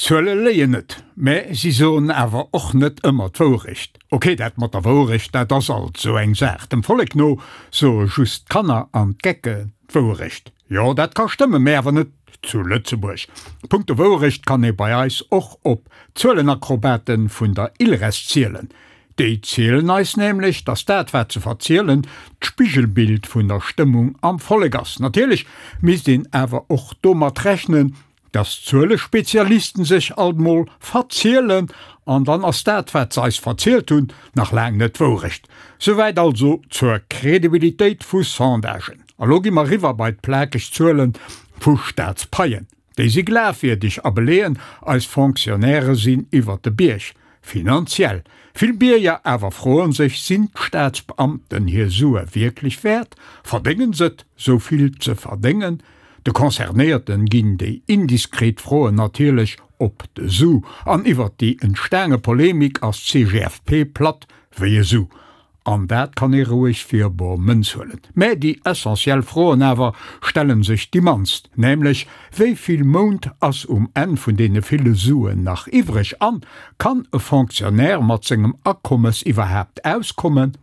Zuele léien net, mä si soen awer och net ëmmer d'Wourecht. Ok, dat mat der Wourecht, dat ass alt sou eng Saach. Dem Vollek no soe just d'Kanner an d'Gecken d'Wourecht. Jo, dat ka stëmmen, mä awer net zu Lëtzebuerg. Punkto Wourecht kann ee bei eis och op d'Zuelenakrobaten vun der ILRES zielen. Déi zielen eis nämlech, datt dat wat se verzielen, d'Spigelbild vun der Stëmmung am Vollek ass. Natierlech misst een awer och domat rechnen, Dass d'Zuelespezialisten sech alt mol verzielen, an dann ass dat wat se eis verzielt hunn nach laang net d'Wourecht. Souwäit also zur Credibilitéit vu Sondagen. A lo gi mer riwwer bei d'plakeg Zuele vu Staatspaien. Déi si glafwierdeg a beleeën, eis Fonctionnairë sinn iwwert de Bierg. Finanziell. Vill Bierger awer froen sech, Sinn d'Staatsbeamten hir Sue wierklech wäert? Verdéngen s'et, sou vill ze verdéngen? De Concernéierten ginn déi indiskret Froen natierlech op de Su, an iwwert déi entstaange Polemik ass d'CGFP platt wéi e Su. An dat kann ee roueg fir bor Mënz huelen. Mä déi essentiell Froen awer stellen sech déi mannst, nämlech, Wéi vill Mount ass um Enn vun deene ville Suen nach iwwreg? An, Kann e Fonctionnaire mat sengem Akommes iwwerhaapt auskommen?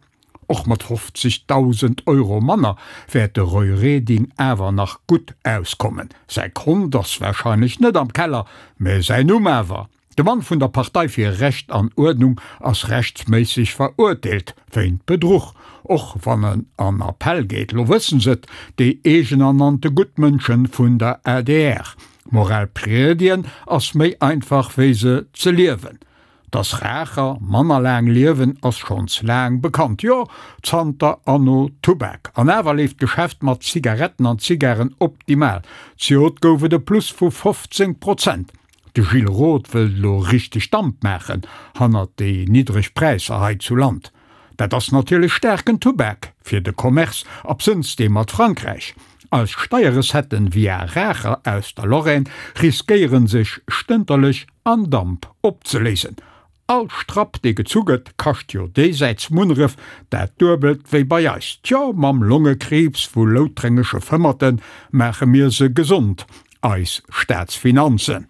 Och mat 50.000 Euro manner wäert de Roy Reding awer nach gutt auskommen. Säi Kont ass warscheinlech net am Keller, mä säin Numm awer. De Mann vun der Partei fir Recht an Uerdnung ass rechtsméisseg verurteelt wéint Bedruch, och wann en an Appell geet. Lo wëssen s'et, déi eegenernannte Guttmënschen vun der adr. Moral priedien ass méi einfach wéi se ze liewen. Dass Raacher manner laang liewen ass schonns laang bekannt, jo zanter Anno Tubak. An awer leeft d'Geschäft mat Zigaretten an Zigaren optimal. Zejoert gouf et e Plus vu 15 Prozent. De Gilles Roth wëllt elo richteg Damp maachen hannert déi niddreg Präisser hei zu Land. Dat ass natierlech staarken Tubak fir de Commerce, absënns dee mat Frankräich. Eis Steierrecetten via Raacher aus der Lorraine riskéieren sech stënterlech an Damp opzeléisen. All Strapp dee gezu gëtt kascht jo déisäits Munneref dat duebelt wéi bei eis. Tjo, mam Longekriibs vu loutrengesche Fëmmerte maache mir se gesond, eis Staatsfinanzen.